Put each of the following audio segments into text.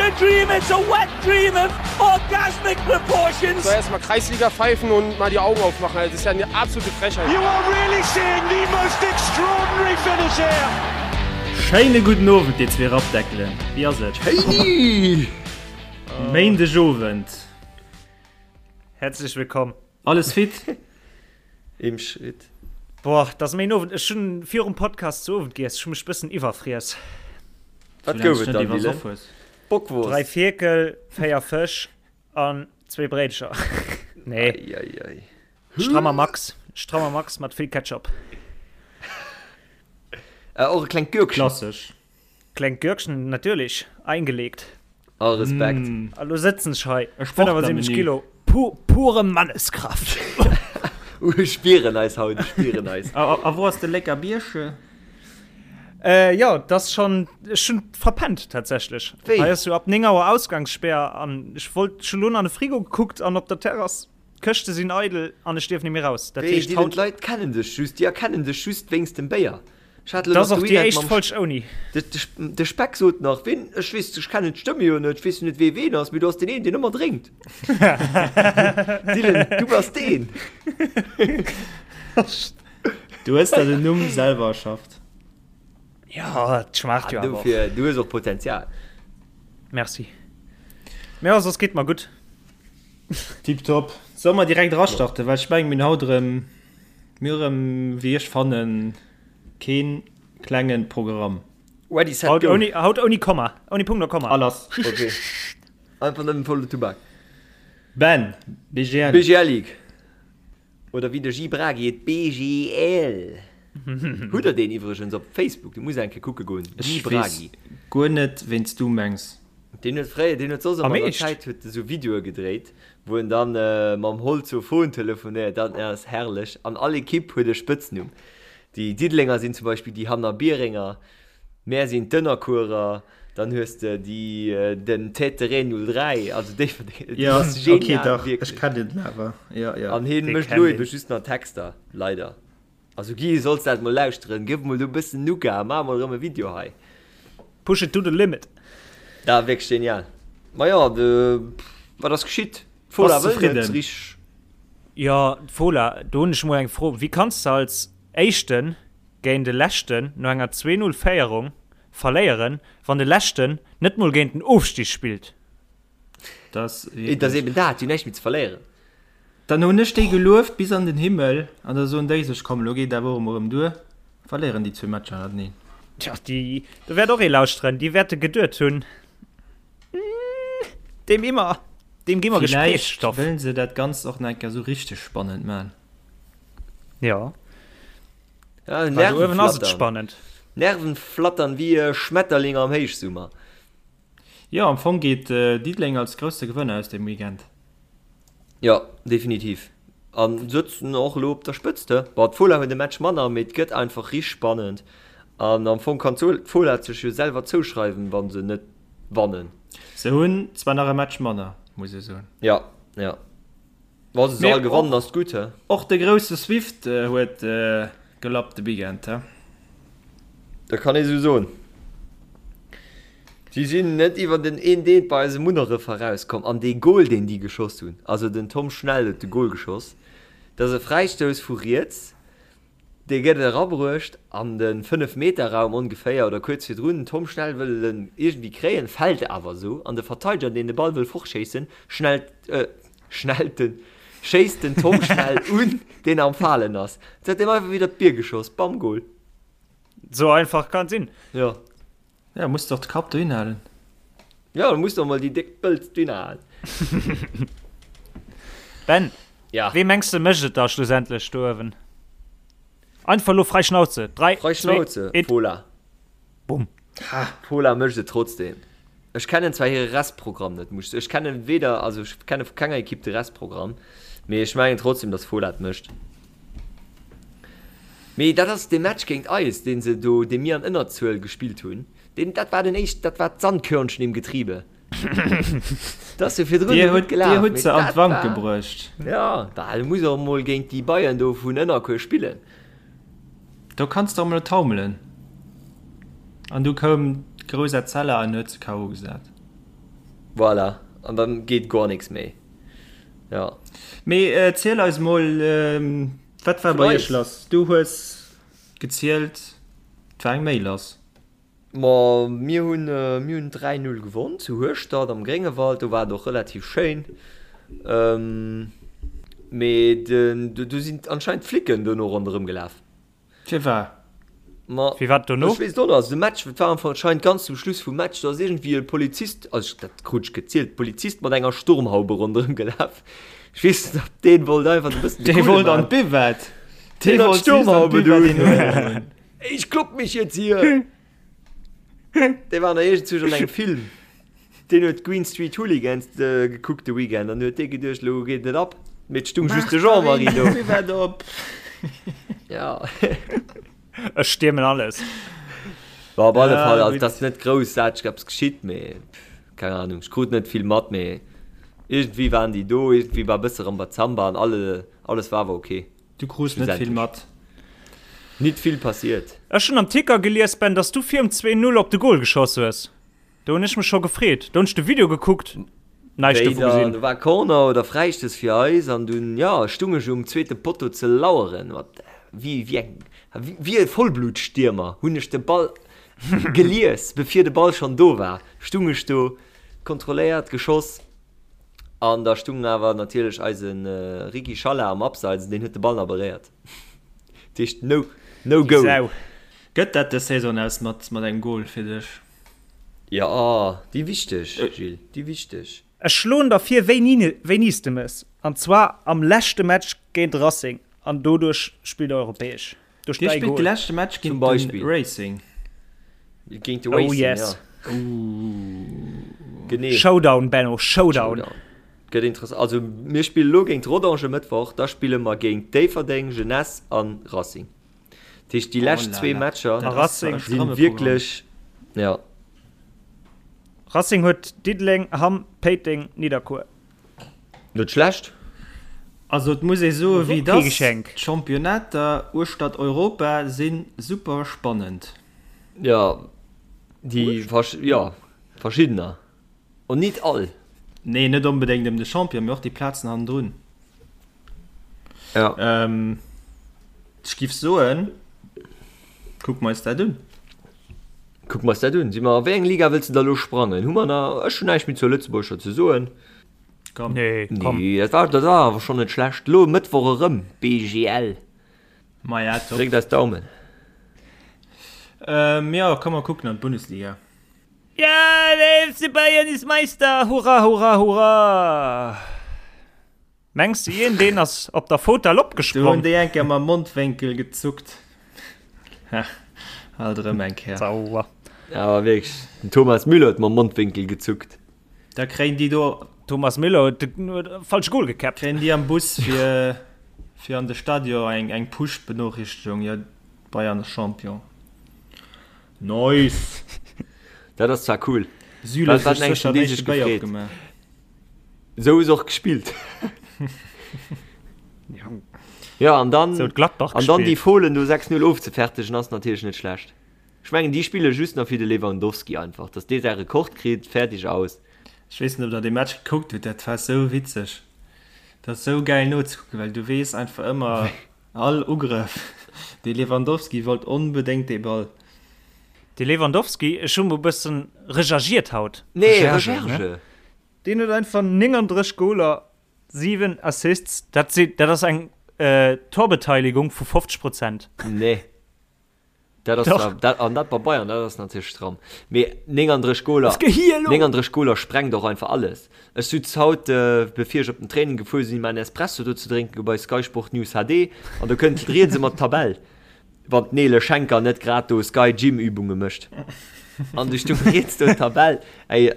a dream, it's a wet dream of orgasmic proportions. Soll erstmal Kreisliga pfeifen und mal die Augen aufmachen. Das ist ja eine absolute Frechheit. You are really seeing the most extraordinary finish here. Schéine gudden Owend dir zwee Rappdeckelen, wéi ass et? Schéini! Méindeg Owend. Herzlech willkomm. Alles fit? Im Schritt. Boah, dat ass méin Owend. Ech hunn virum Podcast zu Owend giess. Ech hu mech bëssen iwwerfriess. Wat gouf et dann, Dylan? Bockwurst? 3 Fierkel, 4 Fësch an zwee Bréidecher. Nee. Ei, ei, ei. Strammer Max. Strammer Max mat vill Ketchup. Äh, och e klengt Gürkchen. Klassesch. Klengt Gürkchen, natierlech. Eingelegt. All Respekt. Mm. A lo sëtzen ech hei. E Sportler-Menü. 75 Kilo. Pu pure Manneskraft. Uh, ech spieren eis haut, ech spieren eis. A, a, a wou ass de Lécker Bierche? Äh, jo, dat ass schon, ech hunn verpennt tatsächlech. Wéi? Hei ass jo ab 9 Auer Ausgangssperr an ech wollt, ech hunn lo an de Frigo gekuckt an op der Terrass, d'Këschte sinn eidel an ech dierf net méi raus. Dat Wéi, heescht Dylan, haut. d'Leit kennen dech just, déi erkennen dech just wéinst dem Béier. Ech hat elo Dat ass nach de och déi Weekend éischt mam Folg ouni. De, de, de Speck sot nach, ween, ech weess, ech kennen d'Stëmme jo net, ech weess jo net, wee ween ass, mee du ass deen een, deen ëmmer drénkt. Dylan, du bass deen. Du hues der den Numm selwer erschafft. Ja, et schmaacht jo Ah, awer och. dofir, du hues och Potenzial. Merci. Mee jo, soss geet mer gutt. Tiptop. Solle mer direkt erastarten, well ech mengen, mir hunn haut erëm, mir hu erëm, wéi ech fannen, Keen klengen Programm. Ready, set, Haut go! ouni, haut ouni Komma. Ouni Punkt a Komma. A lass. Ok. Einfach nëmmen volle Tubak. Ben, BGL. BGL League. Oder wéi de Guy Bragi et BGL. Hutt der deen iwwregens op Facebook? Du muss eng Kéier kucke goen. Guy Ech weess Bragi. guer net ween s du mengs. Deen huet fréier, deen huet soss Am ëmmer an der Eescht? Zäit huet e sou Videoe gedréit, wou en dann mam Holzofon telefonéiert. Dat ass herrlech. An all Ekipp huet e Spëtznumm. Déi Diddelenger sinn zum Beispill déi Hannerbierenger, mär sinn d'Ënnerkuerer, dann hues de déi den Tête de Ré 03, also Déifferdeng. Jo, Dat ass genial, ok, dach, ech wierklech. kennen den awer, jo, jo. An hien Dee mécht kennt elo een. ebe just nach Texter, leider. Also Guy, solls dat mol lauschteren, gëff mol do e bëssen Nougat, maach mol erëm e Video hei. Push it to the limit. Dat ass wierklech genial. Ma jo, de, wat ass geschitt? D'Fola Bass wëll net zefridden? richteg. Jo, d'Fola, do hunn ech mol eng Fro, Wéi kanns de als Éischten géint de Leschten no enger 2, 0 Féierung verléieren, wann de Leschten net mol géint den Ofstig spillt? Dat ass Et ass wierklech. eben dat, déi hunn näischt méi ze verléieren. Dann hunn ech déi gelueft bis an den Himmel an da soen déi sech, komm elo geet awer och emol erëm duer, verléieren déi zwee Matcher hannerteneen. Tja, déi, do wäert och ee lauschteren, déi wäerte geduet hunn, Deem immer, deem gi mer Villäicht Gesprächsstoff. wëllen se dat Ganzt och nach eng Kéier esou richteg spannend man. Ja. Ja, Well do uewen ass et Nerven flattern. spannend. Nerven flattern wéi e Schmetterling am Héichsummer. Jo, am Fong geet Diddeleng als grousse Gewënner aus deem Weekend. Jo, definitiv. A sëtzen och elo op der Spëtzt, he? Bon, d'Fola huet e Match manner, mee et gëtt einfach richteg spannend. An am Fong kann d'Fola et sech jo selwer zouschreiwen, wa se net wannen. Se hunn zwar nach e Match manner, muss ee soen. Jo, jo. Wa se se all gewannen, ass et gutt, he? Och de grousse Swift huet gelappt de Weekend, he? Dat kann ee sou soen. Si sinn net iwwer den een Deet bei eisem Munneref erauskomm. An dee Gol, deen déi geschoss hunn, also den Tom Schnell huet de Gol geschoss, dat ass e Fräistouss vu riets, dee gëtt erabruecht an de Fënnef-Meter-Raum ongeféier oder kuerz virdrun. Den Tom Schnell wëll en iergendwéi kréien, fält awer esou an de Verteideger, deen de Ball wëll fortschéissen, schnellt, schnellt den, schéisst den Tom Schnell un, deen am Falen ass. Huet deem einfach widder d'Bier geschoss, bam, Gol. Sou einfach kann et sinn. Jo. Ja, muss doch de Kapp dohin halen. Ja, du muss doch mol déi déck Pëlz dohin halen. Ben, Ja. wee mengs de mécht et da schlussendlech do uewen? Einfach elo frei Schnauze. 3, Frei 2, Schnauze, 1, Fola. bumm. Fola mécht et trotzdem. Ech kennen zwar hire Restprogramm net, muss ech kennen weder, also ech kenne vu kenger Ekipp de Restprogramm, mee ech mengen trotzdem, dass Fola et mécht. Mee dat ass dee Match géint eis, dee se do, dee mir an Ënnerzuel gespillt hunn, deen, dat war den éischt, dat war d'Sandkörnchen im Getriebe. Dat ass jo virdrun Dir esou gutt hutt, dir gelaf, hutt mee se an dat d'Wank war, gebruecht. jo, bah, du muss och emol géint déi Bayern do vun Ënnerkuer spillen. Do kanns de och mol taumelen. An du koum d'grouss Etzella an huet se KO gesat. Voilà, an dann geet guer nix méi. Ja. Mee ziel eis mol, wat war bei iech lass? Du hues gezielt, et war eng Méi lass. Ma mir hunn mir hunn 3, 0 gewonn zu Hueschtert am Gréngewald. Do war et och relativ schéin. Mee den do sinn anscheinend d'Flicken dono ronderëm gelaf. Firwat? Ma Firwat dono? ech weess et och net. Also de Match, et war anscheinend ganz zum Schluss vum Match, do ass iergendwéi e Polizist, also ech dat krut ech gezielt, Polizist mat enger Sturmhaube ronderëm gelaf. Ech weess net, ob deen wollt einfach e bëssen de Dee Coole wollt an maachen. d'Buvette. Dee Deen hat wollt just an d'Sturmhaube d'Buvette do. een huelen. Ich klopp mich jetzt hier! Dee war nach iergendzwousch an engem Film. Deen huet Green Street Hooligans gekuckt de Weekend an huet dee geduecht, elo geet et ab. Mee et stung just de Jean-Marie do. Buvette op! Ja. Ech stiermen alles. Bon, op alle Ja, Fall, also gutt. et ass net groussaarteg eppes geschitt, mee keng Ahnung, ech krut net vill mat, mee iergendwéi waren déi do, iergendwéi war e bësse Rambazamba an alle, alles war awer ok. Du krus net vill mat. Nit vill passiert. Ech hunn am Ticker gelies, Ben, dass du virum 2, 0 op de Goal geschoss hues. Do hunn ech mech scho gefreet. Do hunn ech de Video gekuckt, näischt dovu gesinn. Do war Corner oder Fräistouss fir eis an dunn, jo, stung ech um zweete Potto ze laueren. Mat wéi wéi eng wéi e Vollblutstiermer hunn ech de Ball gelies, bevir de Ball schonn do war, stung ech do, kontrolléiert, geschoss. An da stung awer natierlech eise Ricky Schalla am Abseits an deen huet de Ball nach beréiert. Dat heescht no, no Déi goal. Sau. Gëtt dat dës Saison aus mat mat engem Goal fir dech? Jo, déi wichteg, Gilles, déi wichteg. Ech schloen der vir wéini wéini s de mëss, an zwar am leschte Match géint Racing an doduerch spillt der europäesch. Duerch Dir däi spillt de Goal. leschte Match Zum géint de Beispill. Racing. Géint de Oh Racing, yes. ja. Genee. Showdown, Benno, Showdown. Showdown. Gëtt interessant. Also mir spille lo géint Rodange e Mëttwoch, da spille mer géint Déifferdeng, Jeunesse an Racing. Dat heescht déi Oh lescht là zwee là. Matcher Dat ass Racing e si stramme Programm. wierklech, ja. Racing huet Diddeleng, Hamm, Péiteng, Nidderkuer. Net schlecht. Also et muss ee soe wéi et Kee ass, Geschenk. d'Championnater uechtert Europa si super spannend. Jo, déi jo, verschiddener. Und nit all. Nee, net onbedéngt ëm de Champion, mee och déi Plazen hannendrun. Ja. Ech giff soen, kucke mer eis dat un. Kucke mer eis dat un. Si mer, a wéi eng Liga wëlls de da lo sprangen? Hu mer nach, ech hunn näischt méi zur Lëtzebuergescher ze soen. Komm. Nee, komm. Nee, dat war, dat war awer schonn net schlecht. Lo e Mëttwoch erëm BGL. Maja, top. Dréckt eis d'Daumen. Ähm, jo, komm mer kucken an d'Bundesliga. Ja, der FC Bayern ist Meister! Hurra, hurra, hurra! Mengs de ien deen ass op der Fotell Do hunn opgesprong? déi eng Kéier mam Mondwénkel gezuckt. Ha, alt erëm eng Kéier. Sauer. Awer wierklech, den Thomas Müller huet mam Mondwénkel gezuckt. Da kréien déi do. Thomas Müller huet de falsche Goal gekäppt. Kréien déi am Bus fir fir an de Stadion eng eng Push-Benoriichtegung, jo, Bayern ass Champion. Nice! Dat ass zwar cool. Süle Wat huet wat sech engen sécher dee den sech éischte Béier gefreet. opgemaach. Esou ass och gespillt. Ja, an dann, Sou huet Gladbach an dann déi gespillt. Fohlen do 6-0 ofzefertegen ass natierlech net schlecht. Ech mengen déi spille just nach fir de Lewandowski einfach, dass dee säi Rekord kritt, fertig aus. Ech weess net ob der dee Match gekuckt hutt, dat war sou witzeg. Dat ass sou gäil nozekucken, well du weess einfach ëmmer all Ugrëff, de Lewandowski wollt onbedéngt dee Ball. De Lewandowski, ech hu mol bëssen rechergiert haut. Nee, Recherche, ne? Recherche. Deen huet einfach 39 Goler, 7 Assists, dat si, dat ass eng Torbeteiligung vu 50 Prozent. Nee. Dat ass Doch. zwar, dat, an dat bei Bayern, dat ass natierlech stramm. Mee 39 Goler, Was gehir elo? 39 Goler sprengt och einfach alles. Ech sutz haut, bevir ech op den Training gefuer sinn, mäin Espresso do ze drénken, bei Sky Sport News HD, an do kënnt riets ëmmer d'Tabell. Wann d'Nele Schenker net grad do Sky Gym Übunge mécht. An du stung riets do d'Tabell, ey,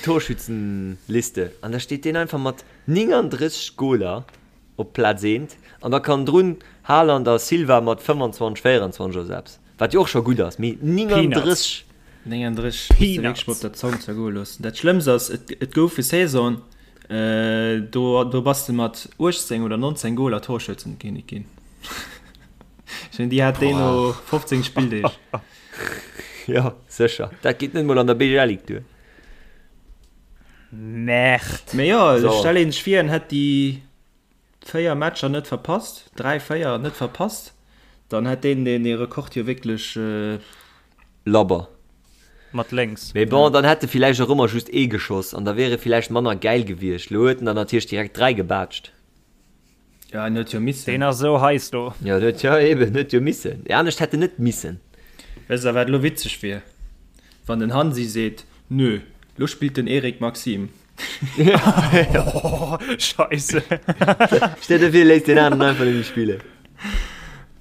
d'Torschützenliste, an da steet deen einfach mat 39 Goler op Plaz eent, an da kann drun Haaland a Silva mat 25, 24 oder sou eppes, wat jo och scho gutt ass, mee 39! 39 muss de wierklech mol op der Zong zergoe loossen. Dat Schlëmmst ass, et gouf e Saison, do do bass de mat 18 oder 19 Goler Torschützenkinnek ginn. Ech mengen, déi hat déi no 15 Spilldeeg. Jo, sécher. Dat geet net mol an der BGL Ligue duer. Merde. Mee jo, so. stell een sech vir, en hätt déi 4 Matcher net verpasst, 3, 4 net verpasst, dann hätt deen deen dee Rekord jo wierklech. Labber. Mat lénks. Mee bon, dann hätt e villäicht och ëmmer just ee geschoss an da wier e villäicht manner gäil gewiescht. Lo huet en der natierlech direkt 3 gebaatscht. Ja, en huet jo missen. Deen ass esou heiß do. Jo, en huet jo eben, en huet jo missen. Anescht hätt en net missen. Wësst der wat elo witzeg wier? Wann den Hansi seet, Nö, lo spillt den Eric Maxim. Oh, Scheisse. Stell dir vir, léisst deen aneren einfach net méi spillen.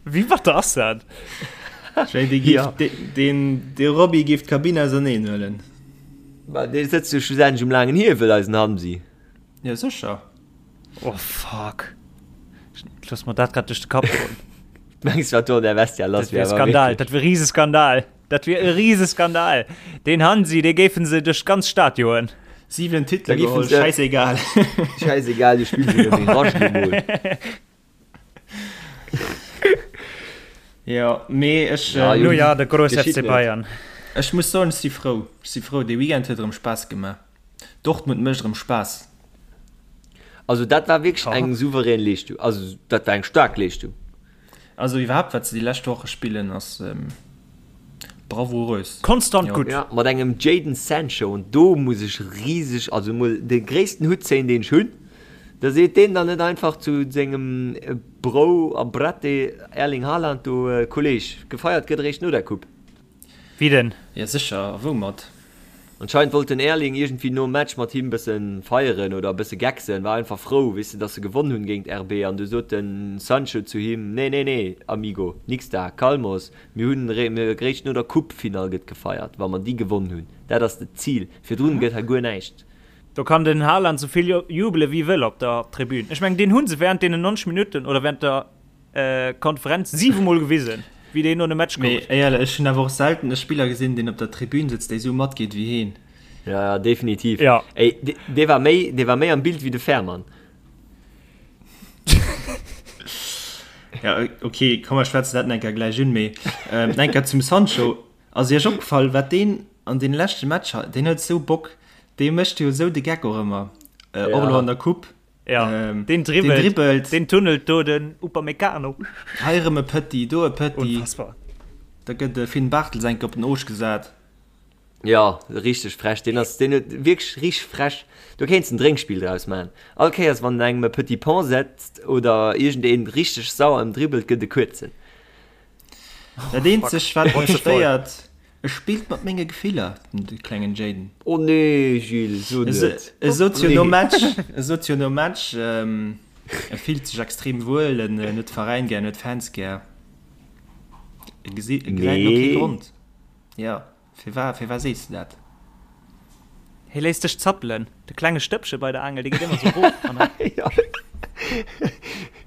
Wéi batter ass dat? Ech mengen, dee géif, deen, dee Roby géif d'Kabinn auserneen huelen. Ma dee sëtzt jo schlussendlech um laangen Hiewel, eisen Hansi. Jo, sécher. Oh fuck. Looss mer dat grad duerch de Kapp goen. Mengs wat do an der Vestia lass Dat wier Skandal, dat wier Rieseskandal. Dat wier e Rieseskandal. Den Hansi, dee géifen se duerch d'ganz Stad joen. 7 Titele geholl, schäissegal. Schäissegal, du spills e Virage emol. Jo, mee ech. Ja, no ja, de grouss FC Bayern. Ech muss soen, ech si frou. Ech si frou, dee Weekend huet erëm Spaass gemaach. Dortmund mécht erëm Spaass. Also dat war wierklech eng souverän Leeschtung. Also dat war eng staark Leeschtung. Also iwwerhaapt wat se déi lescht Woche spillen ass bravourös. Konstant gutt. Ja, mat engem Jadon Sancho an do muss ech riseg, also mol de gréissten Hutt zéien deen ech hunn, da seet deen dann net einfach zu sengem Bro a Brette Erling Haaland do, Kolleg, gefeiert gëtt eréischt no der Coupe. Wie denn? Ja sécher, a woumat? Anscheinend wollt den Erling iergendwéi nom Match mat him bëssen feieren oder bësse gecksen, war einfach frou, weess de, dass se gewonn hunn géint RB an du sot den Sancho zu him, Nee, nee, nee, Amigo, nix da, calmos, mir hunn eréischt no der Coupe-Finall gëtt gefeiert, wa mer déi gewonn hunn, dat ass d'Zil, virdrun gëtt hei guer näischt. Do kann den Haaland souvill jubele wéi wëll op der Tribün. Ech mengen, deen hu se während deenen 90 Minutten oder während der Konferenz 7 mol gewisen, wéi deen no de Match gouf. Mee éierlech, ech hunn awer och selten e Spiller gesinn, deen op der Tribün sëtzt, dee sou matgeet wéi heen. Ja, ja, definitiv. Ja. Ey, dee war méi, dee war méi am Bild wéi de Fährmann. Ja, okay, komm mer schwätzen dat enker gläich un, mee ähm, enker zum Sancho. Ass iech opgefall, wat deen an deene leschte Matcher, deen huet sou Bock, dee mécht jo sou de Geck och ëmmer, äh, och elo an der Coupe. Ja, ähm, den dribbelt, den dribbelt. Den tunnelt do den Upamecano. Hei erëm e Petit, do e Petit. Unfassbar. Da gëtt de Finn Bartels enke op den Oosch gesat. Ja, richteg frech. Den ass den huet wierklech richteg frech. Do kéints en Drénkspill draus man. All Kéiers wann en engem e Petit Pont setzt oder iergendeen richteg sauer ëmdribbelt, gëtt e kuerzen. Dat eenzegt wat mech stéiert, E spillt mat menge Gefiller, den klengen Jayden. Oh nee, Gilles, so net. E sot jo nom Match, e sot jo nom Match, e fillt sech extrem wuel, en huet de Veräin gär, en huet d'Fans gär. E gesäit elo kee Grond. Jo, firwat, firwat sees de dat? Hie léisst sech zappelen, de klenge Stëppche bei der Aangel, dee geet ëmmer sou erof an dann.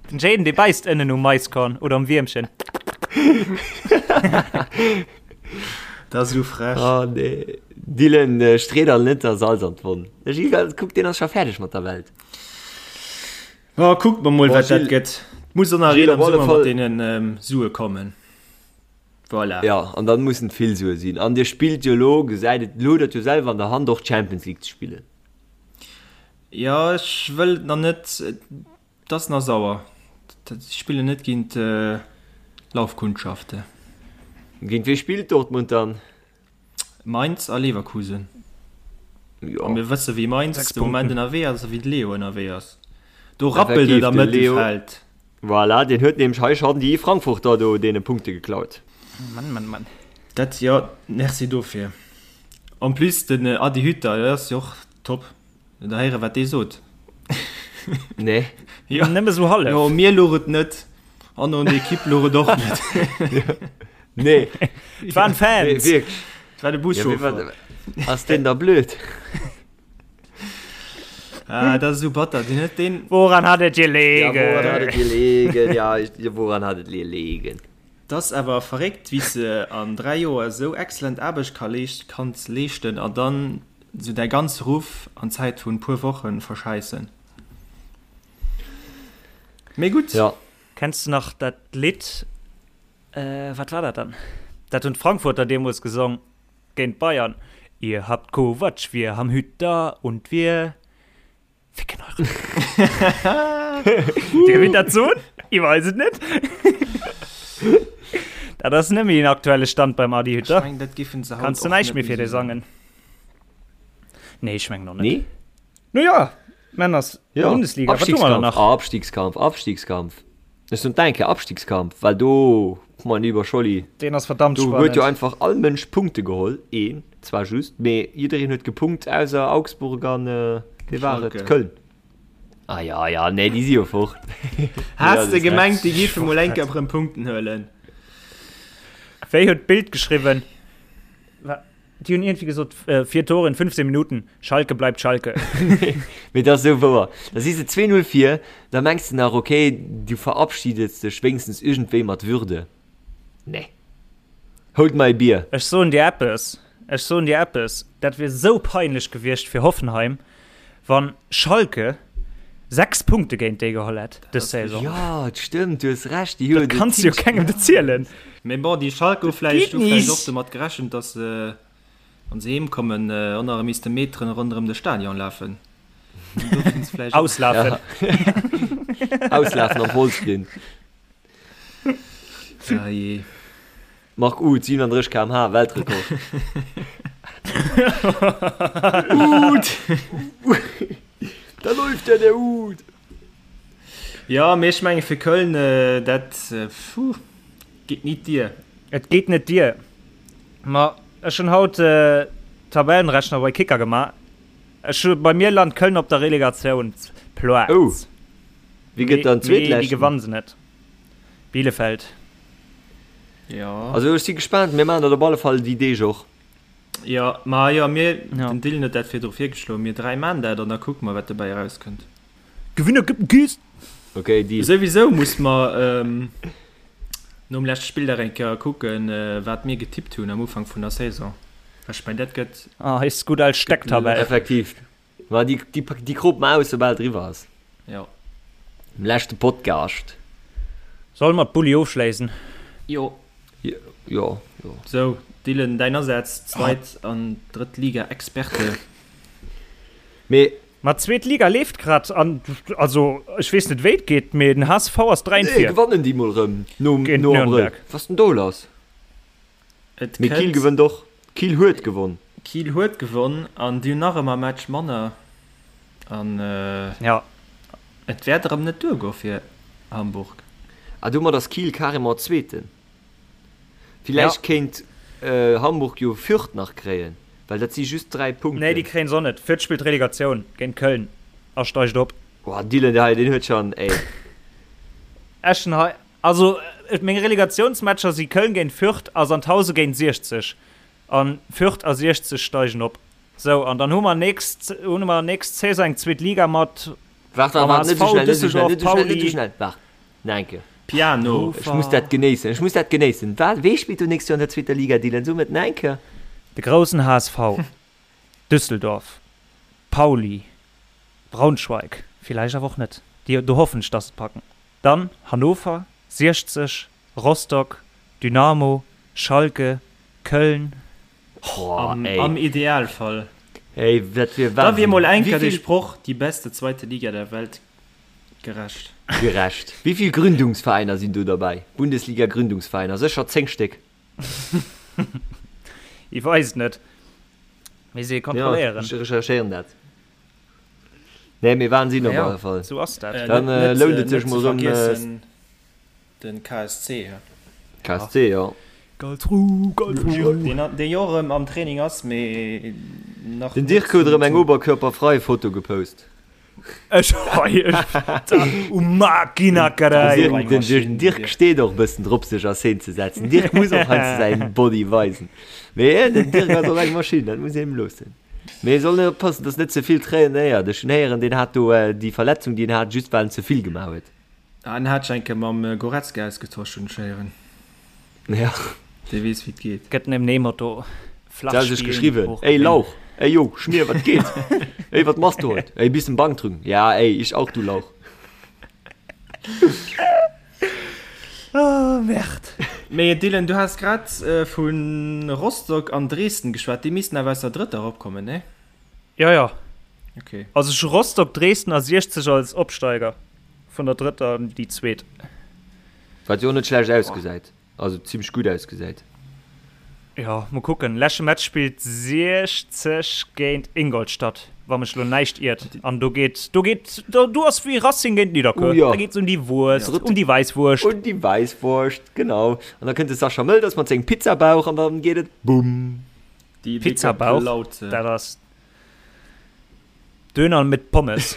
Den Jayden, dee bäisst ënnen um Maiskorn oder um Wiermchen. Dat ass esou frech. Oh nee. Dylan, stree der net da Salz an d'Wonn. De Gilles, kuck, deen ass scho fäerdeg mat der Welt. Oh, kuckt mer mol, wat dat gëtt. D'Muson Arena am Summer mat deenen Sue kommen. Voilà. Ja, an dann mussen et vill Sue sinn. An dir spillt jo elo, gesäit et, elo hutt der et jo selwer an der Hand, och d'Champions League ze spillen. Jo, ech wëll et nach net. Et ass nach sauer. Si spillen net géint Laufkundschaften. Géint wee spillt Dortmund dann? Mainz a Leverkusen. A mir wësse wéi Mainz de Moment ënnerwee ass a wéi de Leo ënnerwee ass. Do rappelt et am Mëttelfeld. Voilà, deen huet nämlech hei schonn déi Frankfurter do deene Punkte geklaut. Mann, Mann, Mann. Dat, jo, merci dofir. En plus den Adi Hütter, dat ass jo och top. Da héiere wat dee sot. Nee. Jo. Nëmme sou hallef. Jo, mir louch et net an an der Ekipp louch et och net. Nee. Et waren Fans. Nee, wierklech. Et war de Buschauffer. Ja, ass deen da blöd? Ah, dat ass esou batter. Deen huet deen. Woran hat et gelegen? Ja, woran hat et gelegen? Ja, ich, woran hat et gelegen? 't ass awer verréckt, wéi s de an 3 Joer esou excellent Aarbecht ka leescht, kanns leeschten a dann sou däi ganze Ruff an Zäit vun puer Wochen verschäissen. Mee gutt. Ja. Kenns de nach dat Lidd, wat war dat dann? Dat hunn d'Frankfurter deemools gesong géint d'Bayern. Ihr habt Kovac, wir haben Hütter und wir ficken eure Dir wit dat soen? Ich weiß et net. Dat ass net méi den aktuelle Stand beim Adi Hütter. Ech meng, dat giffen se haut Kanns du och näischt net méi fir méi dee soen. sangen. Nee, ech mengen och net. Nee? No ja, Männers, Ja, Bundesliga, wat hu mer dann Abstiegskampf, nach? Abstiegskampf, Abstiegskampf. Ech soen d'enke Abstiegskampf, well do, mein lieber Scholli, Deen ass verdammt do huet jo spannend. einfach all Mënsch Punkte geholl, een zwar just, mee jiddereen huet gepunkt ausser Augsburg an, wee war et, Schalke. Köln. Ah ja, ja, nee, déi si jo fort. Has de gemengt, déi Ech géife mol eng fort. Kéier erëm Punkten huelen? Wéi huet d'Bild geschriwwen? Déi hunn iergendwéi gesot, 4 Tore in 15 Minuten, Schalke bleibt Schalke. Mee dat ass esou wouer. Da si se 2-0 vir, da mengs de nach, okay, du verabschiedest dech wéinstens iergendwéi mat Würde. Nee. Hold my beer. Ech soen dir eppes, ech soen dir eppes, dat wier esou peinlech gewiescht fir Hoffenheim, wann Schalke 6 Punkte géint déi geholl hätt dës Saison. Jo, et stëmmt, du hues Recht, déi hu Dat kanns du jo kengem erzielen. Mee bon, déi Schalke hu Dat vläicht geet hu vläicht och nicht. domat gerechent, datt se, wa se heem kommen, och nach erëm misste Meteren ronderëm de Stadion lafen. An do sinn se vläicht och. Auslafen. Ja. Auslafen am Vollsprint. Ah jee. Marc Uth, 37 km/h, Weltrekord. Uth! Da läuft ja der Uth! Jo, mee ech menge fir Köln, dat, puh, geet nit dier. Et geet net dier. Ma ech hunn haut Tabellenrechner bei Kicker gemaach. Ech hu, bei mir lant Köln op der Relegatiounsplaz. Oh, wie gëtt dann Mee déi Zweetleschten? gewanne se net. Bielefeld. Jo. Also ech si gespaant, mir maachen dat op alle Fall déi Deeg och. Jo, ma jo, mir, Ja. den Dylan huet dat virdru virgeschloen, mir 3 maan dat an da kucke mer wat dobäi erauskënnt. Gewinner gëtt en Kiss! Okay, Deal. Souwisou muss mer nom leschte Spilldag eng Kéier kucken, wat mir getippt hunn am Ufank vun der Saison. Well ech mengen, dat gëtt. Ah, eis gutt al Stecktabell. Effektiv. Ma déi, déi, déi krop mer aus, soubal et eriwwer ass. Jo. Am leschte Podcast. Solle mer d'Bulli ofschléissen? Jo. Jo, jo. Sou, Dylan, däin Asaz, Zweit an Drëtt Liga Experte. Mee. Ma d'zweet Liga leeft grad an, also ech weess net wéi et geet, mee den HSV ass 3 Nee, vir. gewannen déi mol rëm nom, Géint no Abrëll. Nürnberg. Was ass denn do lass? Et Mee Kiel kënnt. gewënnt och. Kiel huet gewonn. Kiel huet gewonn an déi hunn nach ëmmer e Match manner an Ja. et wäert erëm net duergoe fir Hamburg. Ah, domat ass Kiel carrément Zweeten. Villäicht kéint Hamburg jo Fürth nach kréien, well dat si just 3 Punkten. Nee, déi kréien se och net. Fürth spillt Relegatioun géint Köln a steigt op. Boah, Dylan hei, deen huet schon, ey. Eschen hei, also meng Relegatiounsmatcher si Köln géint Fürth a Sandhausen géint 60. An Fürth a 60 steigen op. Sou, an dann hu mer nächst, hu mer nächst Saison eng zweet Liga mat Waart, waart, mam waart, net sou HSV, schnell, net sou schnell, Düsseldorf, net sou schnell, net sou Pauli. schnell, waart, nach eng Kéier. Piano. Ech muss dat genéissen, ech muss dat genéissen. Wat, wee spillt do nächst Joer an der zweeter Liga, Dylan? So et nach eng Kéier. De groussen HSV, Düsseldorf, Pauli, Braunschweig, villäicht awer och net, déi, do hoffen ech, dass se et packen, dann Hannover, 60, Rostock, Dynamo, Schalke, Köln. Oh, ey. Am Idealfall. Ey, dat wier Da wier Wahnsinn. mol eng Kéier Wéi dee vill. Sproch die beste zweite Liga der Welt gerecht. Gerecht. Wéi vill Gründungsveräiner sinn do derbäi? Bundesliga-Gründungsveräiner, sécher 10 Stéck. Ich weess et net. Misst ee Ja, kontrolléieren. ech recherchéieren dat. Nee, mee Wahnsinn op Ja, alle Fall. sou ass dat. Dann lount et sech mol rëm. Vergiessen den KSC. KSC, jo. Karlsruhe, Karlsruhe. Deen, dee jo erëm am Training ass, mee nach Den Dirk huet erëm eng oberkörperfrei Foto gepost. Ech hei, ech, u Machina, carai. Den Dirk, Dirk steet och e bëssen drop sech a Szene ze setzen. Dirk muss och heiansdo säin Body weisen. Mee den Dirk ass och eng Maschinn, dat muss een him loossen. Mee e soll net oppassen, dass net ze vill trainéiert. Ech hunn héieren, deen hat do déi Verletzung, déi en hat, just well en ze vill gemaach huet. Ah, en hat sech eng Kéier mam Goretzka ausgetosch, hunn ech héieren. Ja. Dee weess, wéi et geet. Gëtt nem Motto, flach Se hat sech spillen, geschriwwen, hoch Ey gewinnen. Lauch, ey jo, Schmier, wat geet? Ey, wat machst du heut? Ey, bissen Bank drücken. Ja, ey, ich auch, du Lauch. Oh, Merde. Mee Dylan, du has grad vu Rostock an Dresden geschwat, déi missten awer aus der drëtter eropkommen, nee? Jo, jo. Okay. Also ech hu Rostock, Dresden a 60 als Opsteiger vun der drëtter an déi zweet. Wat jo och net schlecht ausgesäit, also zimmlech gutt ausgesäit. Jo, mol kucken. Leschte Match spillt 60 géint Ingolstadt, wa mech lo näischt iert. An do geet, do geet, do, do ass wéi Racing géint Nidderkuer. Oh jo. Da geet et um déi Wurscht, um déi Wäisswurscht. Un déi Wäisswurscht, genau. An da kënnt de Sascha Mölders mat sengem Pizzabauch an dann geet et bumm. Déi décker Pizzabauch, Plaute. dat ass Döner mit Pommes.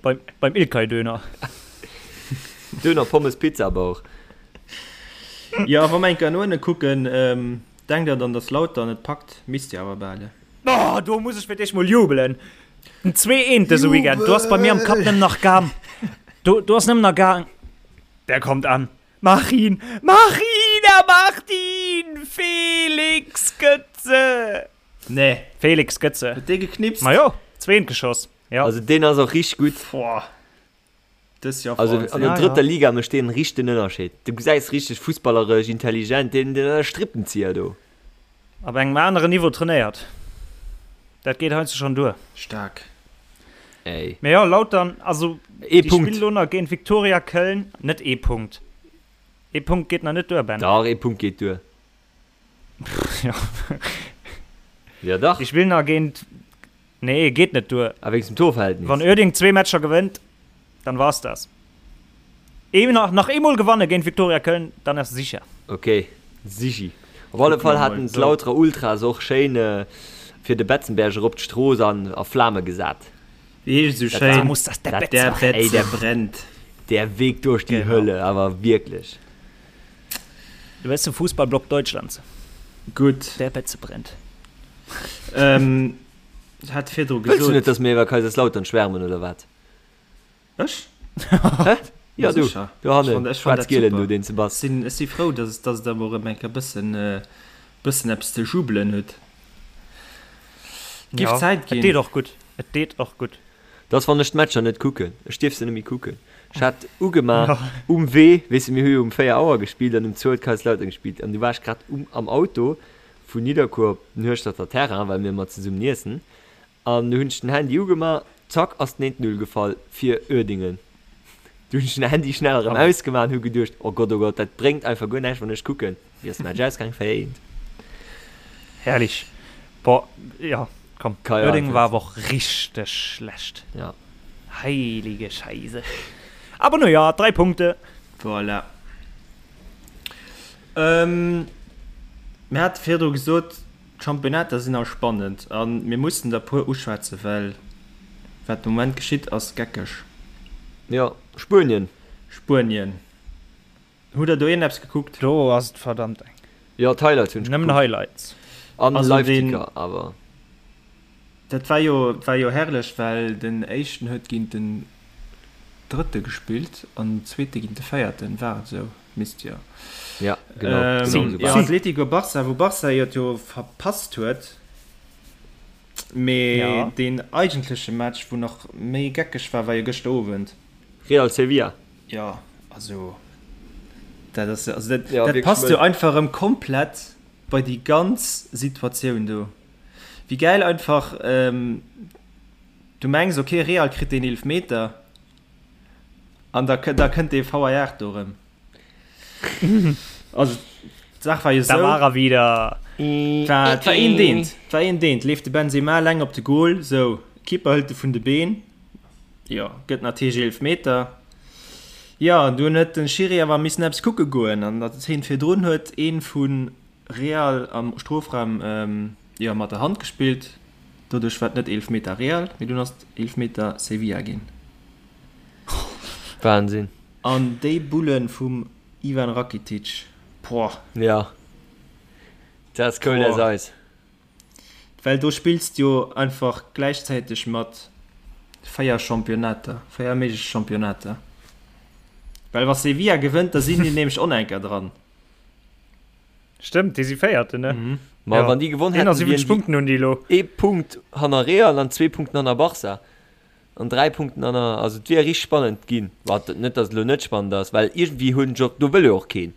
beim, beim Ilkay Döner. Döner, Pommes, Pizzabauch. Jo, wa mer eng Kéier no ënne kucken, denkt der dann, dass Lautern et packt? Misst jo awer bal, ne? Oh, do muss ech fir d'éischt mol jubelen. Den 2 eent dëse Weekend, do ass bei mir am Kapp nëmmen nach gaang, do, do ass nëmmen nach gaang, der kommt an, mach ihn, mach ihn, er macht ihn, Felix Götze! Nee. Felix Götze. Huet dee geknipst? Ma jo, zweent geschoss, jo. Also deen ass och richteg gutt. Boah. Dës Joer Also Wahnsinn. an der Ja, drëtter ja. Liga mécht deen richteg den Ënnerscheed. Du gesäis richteg fussballeresch intelligent, deen deen ass e Strippenzieher do. Op engem aneren Niveau trainéiert. Dat geet heiansdo schonn duer. Staark. Ey. Mee jo, Lautern, also Ee déi Punkt. spillen elo nach géint Viktoria Köln. Net ee Punkt. Ee Punkt geet nach net duer, Ben. Dach, ee Punkt geet duer. Jo. Ja dach. Déi spillen nach géint Nee, geet net duer. A wéinst dem Torverhältnis. Wann Uerding zwee Matcher gewënnt, dann war's das. Ee nach, nach eemol gewanne géint Viktoria Köln, dann ass sicher. Ok, sichi. Op alle Fall haten d'Lauterer Ultras och schéin fir de Betzenberg erop d'Strooss an a Flame gesat. Wéi heescht et esou schéin? Muss das der Der Betze brennt. Der Weg durch die Hölle, awer wierklech. De beste Fußballblock Deutschlands. Gutt. Der Betze brennt. Ähm, hat virdru Wëlls du gesot. net, dass mir iwwer Kaiserslautern schwärmen, oder wat? Ech? Hä? Ja, du, Sécher. do Ech hannen, fand, ech fand dat schwaarz-gielen super. do, deen s de bass. Sinn, ech si frou, dass, dass der emol erëm eng Kéier bëssen, bëssen eppes ze jubelen hutt. Giff Ja, Zäit et ginn. deet och gutt. Et deet och gutt. Dat ass, wann ech d'Matcher net kucken. Ech dierf se net méi kucken. Ech hat ugemaach um Wee, weess de, mir hu jo um 4 Auer gespillt an um zwou huet Kaiserslautern gespillt an du war ech grad um am Auto vun Nidderkuer op den Hueschterter Terrain, well mir ëmmer zesummen iessen an du hunn ech den Handy ugemaach, zack ass den 1, 0 gefall fir Uerdingen. Du hunn ech den Handy schnell erëm ausgemaach an hu geduecht, oh Gott, oh Gott, dat bréngt einfach guer näischt, wann ech kucken. Wéi ass de Match ausgaang? 4, 1. Herrlich. Boah, ja, komm. Kai Uerdingen war Havertz. awer och richteg schlecht. Ja. Heilige Scheise. Aber no ja, 3 Punkte. Voilà. Ähm, mir hate virdru gesot, d'Championnater sinn all spannend a mir mussen der puer uschwätzen, well wat de Moment geschitt ass geckeg. Jo, Spuenien. Spuenien. Hutt der do iergendeppes gekuckt? Do ass et verdammt eng. Jo, d'Highlights hunn ech Nëmmen gekuckt. Highlights. An Also deen, Live-Ticker awer. dat war jo, war jo herrlech, well den éischten huet géint den drëtte gespillt an den zweete géint de véierten. War et esou? Misst jo. Ja, genau, genau Ähm, esou jo, war et. Atletico Barça, wou Barça jo et jo verpasst huet, mee Ja. deen eigentleche Match, wou nach méi geckeg war, war jo gëschter Owend. Real Sevilla. Jo, also dat ass, also dat, Ja, dat wierklech passt jo mëll. einfach erëm komplett bei déi ganz Situatioun do. Wéi gäil einfach, ähm, du mengs, okay, Real kritt deen Eelefmeter an da, da kënnt dee VAR do erëm. Also d'Saach war jo Da esou. war er wieder. War, et war een Deent, et war een Deent, leeft de Benzema eleng op de Goal, sou, Keeper hëlt e vun de Been. Jo, gëtt natierlech Eelefmeter. Jo, an dunn huet den Schiri awer missen eppes kucke goen an der Zeen virdrun huet een vu Real am Strofraum jo mat der Hand gespillt. Doduerch war et net Eelefmeter Real, mee dunn ass et Eelefmeter Sevilla ginn. Wahnsinn. An déi Bullen vum Ivan Rakitic, poah. Jo, dat ass cold as ice. Well do spills de jo einfach gläichzäiteg mat 4 Championnater, 4 méiglech Championnater. Well wa Sevilla gewënnt, da sinn déi nämlech och nach eng Kéier dran. Stëmmt, déi si Véierten, ne? Mhm. Ma Ja. wann déi gewonn hätten, 71 wieren déi Punkten hunn déi elo. ee Punkt hanner Real an zwee Punkten hanner Barca an dräi Punkten hanner, also et wier richteg spannend ginn. Wat net, datt et elo net spannend ass, well iergendwéi hunn ech och, do wëll jo och keen.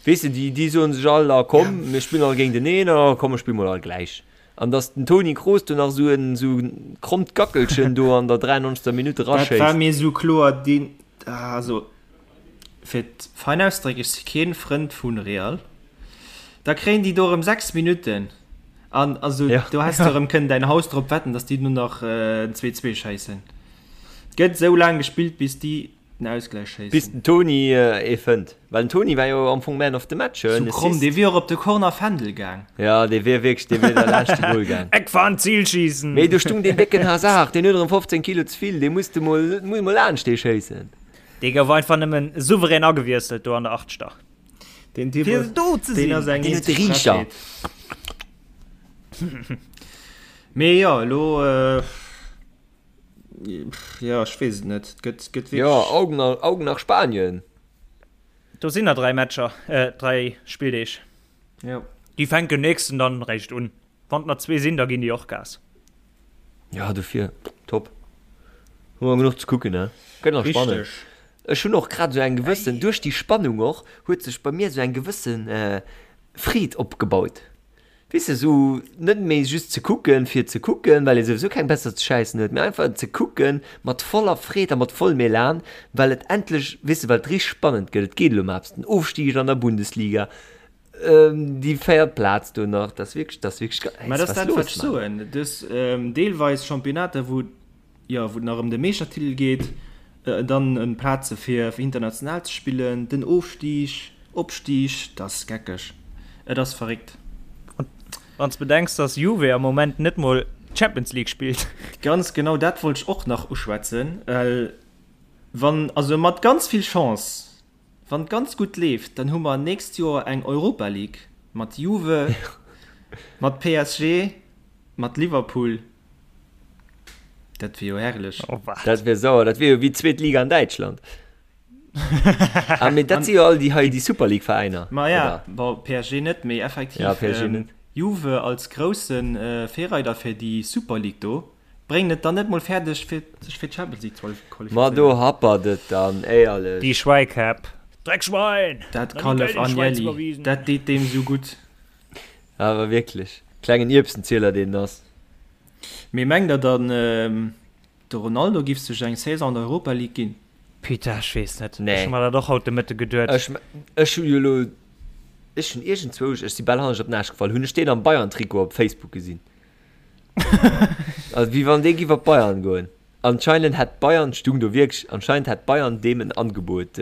Weess de, déi, déi soen sech all, ah komm, mir spillen all géinteneen, ah komm, mir spille mol all gläich. An datt den Toni Kroos do nach esou en, esou en krommt Gackelchen do an der 93. Minutt Dat war eraschéisst. mir esou kloer, deen, also fir et fein auszedrécken, ech si keen Frënd vun Real, da kréien déi do erëm 6 Minutten an also Ja. do häss de erëm kënnen däin Haus drop wetten, datt déi do nach en 2, 2 schéissen. Et gëtt esou laang gespillt, bis déi den Ausgläich Bis schéissen. den Toni ee fënnt. Well den Toni war jo am Fong Man of the Match, Sou en kromm, Assist. dee wier och op de Corner Fändel gaang. Ja, dee wier wierklech, dee wier da laanscht de Goal gaang. Eckfahn, Zielschießen! Mee do stung deen décken Hazard, deen huet erëm 15 Kilo ze vill, dee musste mol, muss mol laanscht dee schéissen. Dee gouf einfach nëmmen souverän agewiesselt do an der Achtschter. Deen Typ Fir ass, do ze deen sinn. ass eng Deen huet de eenzeg Riichter. Frechheet. Mee jo, elo, jo, ech weess et net. Et gëtt, gëtt Jo, wierklech. Augen, Augen nach Spanien. Do sinn nach 3 Matcher, 3 Spilldeeg. Jo. Déi fänken nächsten dann réischt un. Wann et nach zwee sinn, da ginn déi och Gas. Ja, dofir, top. Hu mer genuch ze kucken, ne? Gëtt nach spannend. Richteg. Ech hunn och grad esou eng gewëssen, duerch déi Spannung och, huet sech bei mir esou eng gewësse Freed opgebaut. Weess de, esou net méi just ze kucken, fir ze kucken, well ee souwisou keng besser ze schäissen huet, mee einfach ze kucken mat voller Freed a mat vollem Elan, well et endlech, weess de, well et richteg spannend gëtt. Et geet elo ëm eppes, den Ofstig an der Bundesliga, Déi véiert Plaz do nach, dat ass wierklech, dat ass wierklech ge-, Mä dat ass was dat, los, wat ech Mann? soen. Du hues deelweis Championnater, wou, jo, wou et nach ëm de Meeschtertitel geet, dann ëm Plaze fir international ze spillen, den Ofstig, Opstig, dat ass geckeg. Et ass verréckt. Wann s bedenks, dass Juve am Moment net mol d'Champions League spillt. Ganz genau dat wollt ech och nach uschwätzen, well wann, also mat ganz vill Chance, Wann et ganz gutt leeft, dann hu mer nächst Joer eng Europa League mat Juve, mat PSG, mat Liverpool. Dat wier jo herrlech. Oh wat. Dat wier sauer, dat wier jo wéi d'zweet Liga an Däitschland. Ah, mee dat si jo all déi hei, déi Super League Veräiner, Ma ja, oder? bon, PSG net, mee effektiv, Ja, PSG net. Juve als grousse Virreider fir déi Super League do. Bréngen et dann net mol fäerdeg fir sech fir d'Champions League ze qualifizéieren. Ma do happert et dann, éierlech. Déi Schwäikäpp. Dreckschwein! Dat Nach ni Kallef Geld in d'Schwäiz Agnelli, iwwerwisen. dat deet deem sou gutt. Awer wierklech, klengen Ierbsenzieler deen ass. Mee mengt der dann de Ronaldo giff sech eng Saison an der Europa League ginn? Putain, ech weess net. Nee. Ech hu mer dat och haut de Mëtte geduet. Ech, ech hu jo elo, ech hunn iergendzwousch, ech si bal hannescht op den Aarsch gefall, hunn ech deen am Bayern-Trikot op Facebook gesinn. Also wéi wann dee giff op Bayern goen. Anscheinend hätt Bayern, stung do wierklech, anscheinend hätt Bayern deem en Angebot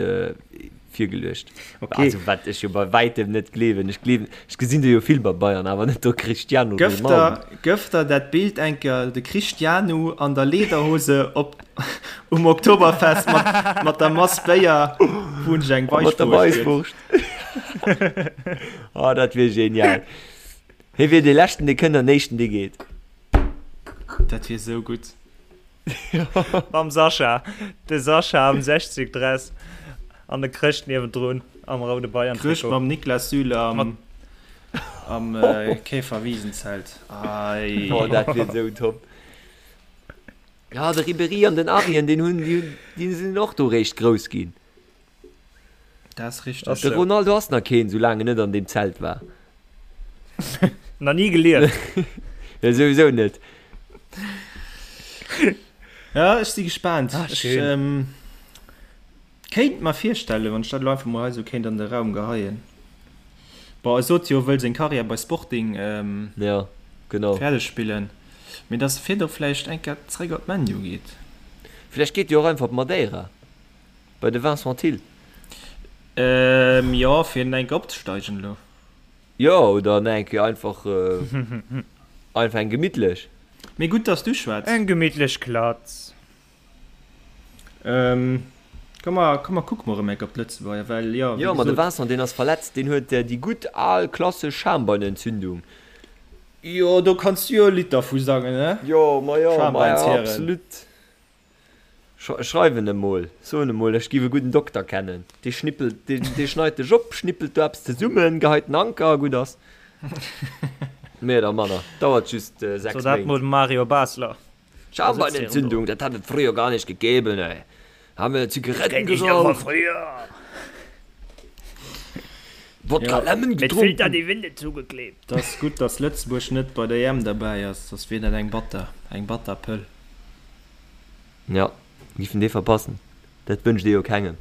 virgeluecht. Okay. Also wat ech jo bei wäitem net gleewen. Ech gleewen, ech gesinn do jo vill bei Bayern, awer net do Cristiano Gëff Ronaldo. der, gëff der dat Bild enker, de Cristiano an der Lederhose op um Oktoberfest mat, mat der Mass Béier, wou en sech eng Mat der Weisswurscht gëtt. Weisswurscht. Oh, dat wier genial. Hie wier dee leschten dee kënnt an éischten dee geet. Dat wier sou gutt. Mam Sascha. De Sascha am 60 Dress an de Chrëscht niewendrun am roude Chrëscht Bayern-Trikot. mam Niklas Süle am am Käferwisenzelt. Ei. Oh, dat wier sou top. Ja, de Ribéry an den Arjen, deen hunn, déi hunn, déi sinn och do réischt grouss ginn. Dat ass richteg. De Ronaldo ass nach keen, soulaang en net an deem Zelt war. Nach ni gelieft. Ja, souwisou net. Ja, ech si gespaant. Ah, Ech schön. ähm, kéint mer virstellen, wann ech dat elo einfach mol hei sou kéint an de Raum geheien. Bon, e sot jo, e wëll seng Karriär bei Sporting ähm, Ja, genau. fäerdeg spillen, mee dass e virdu vläicht eng Kéier zréck op ManU geet. Vläicht geet jo och einfach op Madeira. Bei de Vincent Thill. Ähm, jo, fir eng Kéier opzesteigen elo. Jo, oder nach eng Kéier einfach, einfach eng gemittlech. Mee gutt, dass du schwätz. Eng gemittlech Klatz. Ähm, komm mer, komm mer kucke mer erëm eng Kéier op d'Lëtzebuerger, well jo, wéi Jo, ma de gesot. Vincent, deen ass verletzt, deen huet déi gutt al klassesch Schambeinentzündung. Jo, do kanns du jo e Lidd dervu sangen, ne? Jo, ma jo, ma Schambeinshären. absolut. Schreiwen em mol, soen em mol, ech giff e gudden Dokter kennen, dee schnippelt, dee schneit dech op, schnippelt do eppes zesummen, geheit den Anker a gutt ass. Méi oder manner, dauert just 6 So dat Méint. mol de Mario Basler. Schambeinentzündung, dat hat et früher gar nicht gegeben, ey. Haben wir Zigaretten geraucht. Wodka Lemon Mit gedronken. Filter die Winde zugeklebt. Et ass gutt, dass Lëtzebuerg net bei der EM derbäi ass, soss wier dat eng batter, eng batter Pëll. Ja, giffen dee verpassen. Dat wënscht ee jo kengem.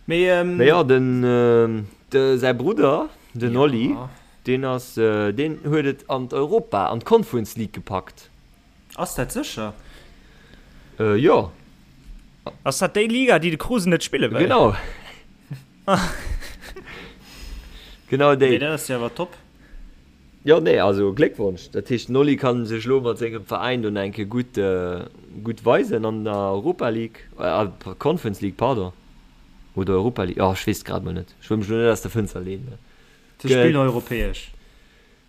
Mee, Mee jo, den, de säi Brudder, den Oli, ja. deen ass, deen huet et an d'Europa, an d'Conference League gepackt. Ass dat sécher? Jo. Ass dat déi Liga, déi de Kruse net spille wëll? Genau. Genau déi. Mee dat ass jo awer top. Jo, nee, also Gléckwonsch. Dat heescht, den Oli kann sech elo mat sengem Veräin do nach eng Kéier gutt, gutt weisen an der Europa League, äh, Conference League, pardon. Oder Europa League, oh, ech weess et grad mol net. Ech wëll mech elo net aus der Fënster leenen. Se spillen europäesch.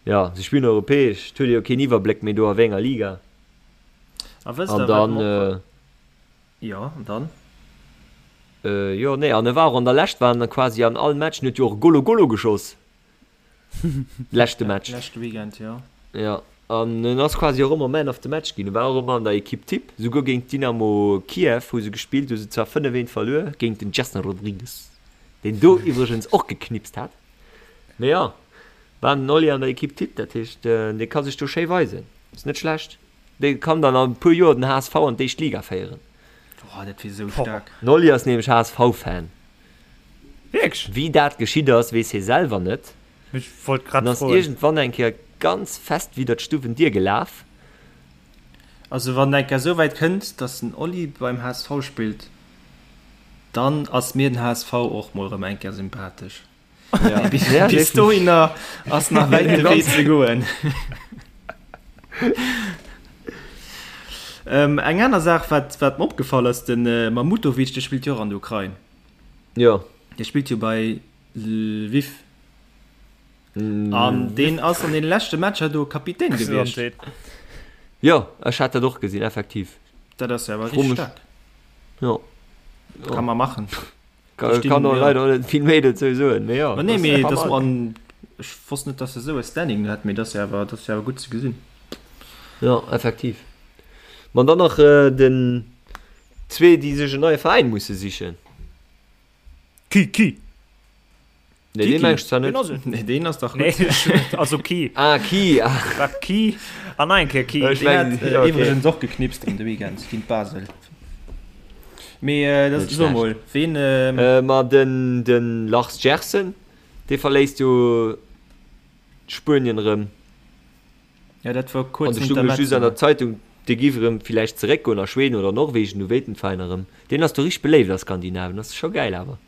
Jo, se spillen europäesch. Et huet ee jo keen Iwwerbléck méi do a wéi enger Liga. A wësst An der, wat dann, mer och. Jo, an dann? Jo, nee, an e war och an der Lescht war en quasi an all Match, en huet jo och Golo Golo geschoss. Leschte Match. Leschte Weekend, jo. Jo, an en ass quasi och ëmmer Man of the Match ginn. E war och ëmmer an der Equipe Type. Souguer géint Dynamo Kiew hu se gespillt, hu se zwar 5, 1 verluer géint den Gerson Rodrigues, deen do iwwregens och geknipst hat. Mee jo, war den Oli an der Equipe Type, dat heescht, dee ka sech do schéi weisen. Ass net schlecht. Dee kann dann an e puer Joer den HSV an d'éischt Liga féieren. Boah, dat wier esou staark. Den Oli ass nämlech HSV-Fan. Wierklech? Wéi dat geschitt ass, weess hie selwer net. Ech wollt grad En ass froen. iergendwann eng Kéier ganz fest widder d'Stuwendier gelaf. Also wann et eng Kéier esou wäit kënnt, dass den Oli beim HSV spillt, dann ass mir den HSV och mol erëm eng Kéier sympathesch. Ja. Bis, bis dohinner ass nach wäit de Wee ze goen. ähm, eng aner Saach, wat, wat mir opgefall ass, den äh, Mamutovic, de spillt jo och an der Ukrain. Ja. Dee spillt jo bei Lviv. An deen ass an den leschte Matcher do Kapitän gewiescht. Jo, ech hat dat och gesinn, effektiv. Dat ass jo awer richtig staark. Jo. Kann man machen. Kann, kann och leider net vill méi dozou soen, mee jo. Ma nee, mee dass man, ech wosst net, dass e sou e Standing hätt, mee dass awer, dass awer gutt ze gesinn. Jo, effektiv. Ma dann nach den zwee, déi sech en neie Veräin musse sichen. Ki, Ki. Nee, deen meng ech zwar net. Nee, deen ass dach gutt. Nee, also Ki. Ah, Ki, ah. Wat Ki an nach eng Kéier Ki. Ech Deen mengen, hat ja, okay. iwwregens och geknipst an de Weekend géint Basel. Mee äh, das, Net so schlecht. mol, ween ähm, Äh, ma den, den Lars Gersen, dee verléisst jo Spuenien erëm. Ja, dat war An kuerz do stung ech just an der Zeitung, dee giff erëm villäicht zeréckgoen a Schweden oder Norwegen, du wéilt den Veräin erëm. Deen ass do richteg beléift a Skandinavien, ass scho gäil awer.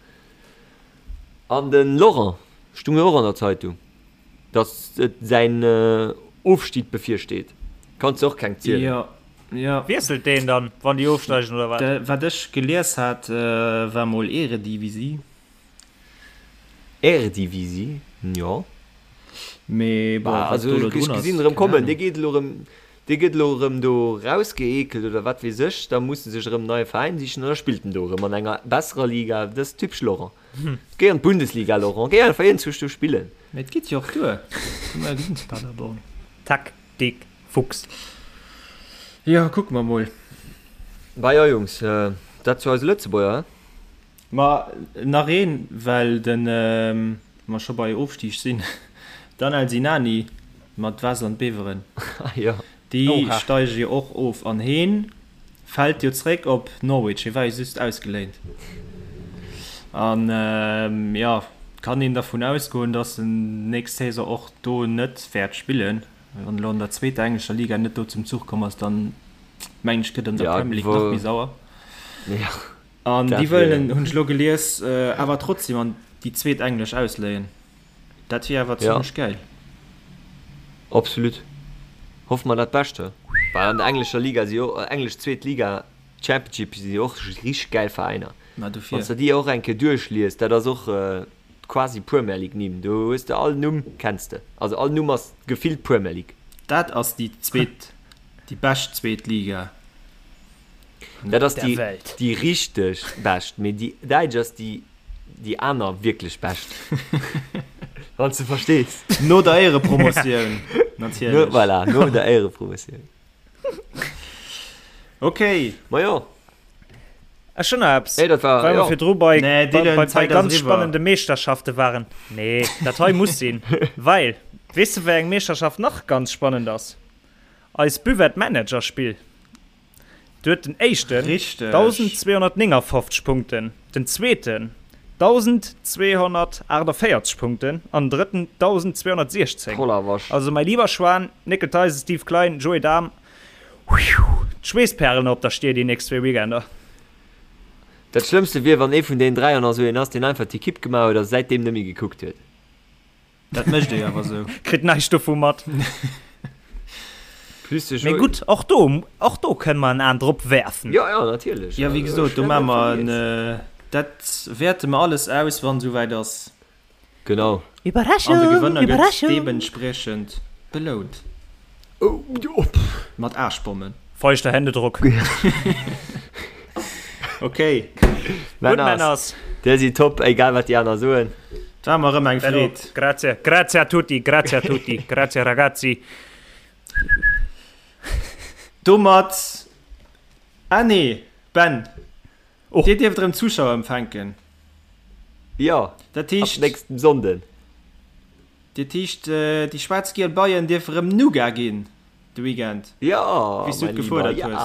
An den Laurent stung jo och an der Zeitung, dass et säin Ofstieg bevirsteet. Kanns de och keng zielen. Jo, jo. Wiesselt deen dann, wann déi ofsteigen oder wat? Wat ech gelies hat, war mol Eredivisie. Eredivisie, jo. Mee bon, wat Also do elo ech drun ass, gesinn erëm keng kommen, Ahnung. dee geet elo erëm, dee gëtt elo erëm do rausgeekelt oder wat weess ech, da muss e sech erëm en neie Veräin sichen an da spillt en do erëm an enger besserer Liga. Dat ass typesch Laurent. Géi an d'Bundesliga, Laurent, géi einfach iergendwou do spillen. Mee et geet jo och duer, hu mer jo gesinn zu Paderborn. Taktik Fuchs. Jo, kucke mer mol. Bah jo Jungs, dat zu eise Lëtzebuerger, he? Ma nach een, well de mer scho bei Ofstig sinn, Danel Sinani mat Waasland Beveren, déi steige jo och of an heen fält jo zréck op Norwich, hie war jo just ausgeléint. An jo, kann een dervun ausgoen, datt en nächst Saison och do net wäert spillen. Wann elo an der zweeter englescher Liga net do zum Zuch komm ass, dann mengen ech gëtt an der Premier League nach méi sauer. An déi wëllen en, hunn ech elo gelies, awer trotzdem an déi zweet englesch ausléien. Dat wier awer zimlech gäil. Absolut. Hoffe mer dat Bescht, he? Well an der englescher Liga si jo, englesch zweet Liga, Championship, si jo och richteg gäil Veräiner. Ma dofir. Wann s de déi och eng Kéier duerchlies, dat ass och quasi Premier League Nimm. Do hues de all Numm kenns de. Also all Numm ass gefillt Premier League. Dat ass déi zweet, déi bescht zweet Liga. Dat ass déi, déi richteg bescht, mee déi däitsch ass déi, déi aner wierklech bescht. Wann s de verstees. No der Éierepromotioun, natierlech. No, voilà, no der Éierepromotioun. Okay. Ma jo. Ech hunn nach eppes, Nee, dat war, well mer jo. virdru bei, Nee, bei, Dylan, bei, bei d'Zäit ass ganz eriwwer. spannende Meeschterschafte waren. Nee, dat hei muss sinn. Well, weess de wéi eng Meeschterschaft nach ganz spannend ass? Eis Buvette Manager Spill. Do huet den éischten Richteg. 1.259 Punkten, den zweeten 1.248 Punkten an den drëtten 1.216. Voller Wasch. Also mäi lieber Schwan, Néckel Theisen, Steve Klein, Joé Dahm, D'Schweessperlen op der Stier déi nächst zwee Weekender. Dat Schlëmmste wier, wann ee vun deenen dräi an esou een ass, deen einfach d'Ekipp gemaach huet a säitdeem net méi gekuckt huet. Dat mécht ee awer esou. Kritt näischt dovu mat. Plus de Mee Joé. gutt, och do, och do kënne mer en An drop werfen. Jo, jo, natierlech. Jo, wéi Also, gesot, ech do net maache mer en, vergiess. dat wäerte mer alles aus, wann esouwäit ass. Genau. An de Gewënner gëtt deementspriechend belount. Mat Aarschbommen. Feuchter Händedruck. Ok. Gutt Männers, Dir sidd top, egal wat déi aner soen. Et war mer erëm eng Freed. Grazie, grazie a tutti, grazie a tutti, grazie ragazzi. Domat, ah nee, Ben, Dir dierft erëm Zuschauer empfänken. Jo, Dat heescht, ab nächstem Sonnden. Dat heescht, déi schwaarz-giel Beien dierfe rëm Nougat ginn de Weekend, Jo, wéi s du mäi et Lieber, gefuerdert ja. hues.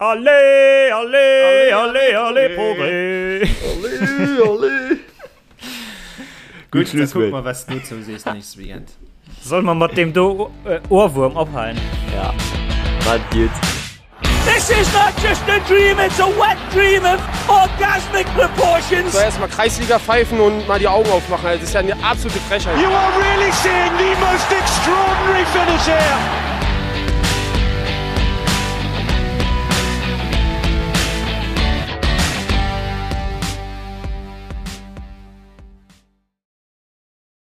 Allez, allez, allez, allez, Progrès! Allez, allez! Gutt, Gutt da kucke Schlusswuert. mer, wat s du dozou sees nächste Weekend. Solle mer mat deem do Ohrwurm ophalen? Ja, maat gutt. This is not just a dream, it's a wet dream of orgasmic proportions. So erstmal Kreisliga pfeifen und mal die Augen aufmachen. Das ist ja eine absolute Frechheit. You are really seeing the most extraordinary finish here.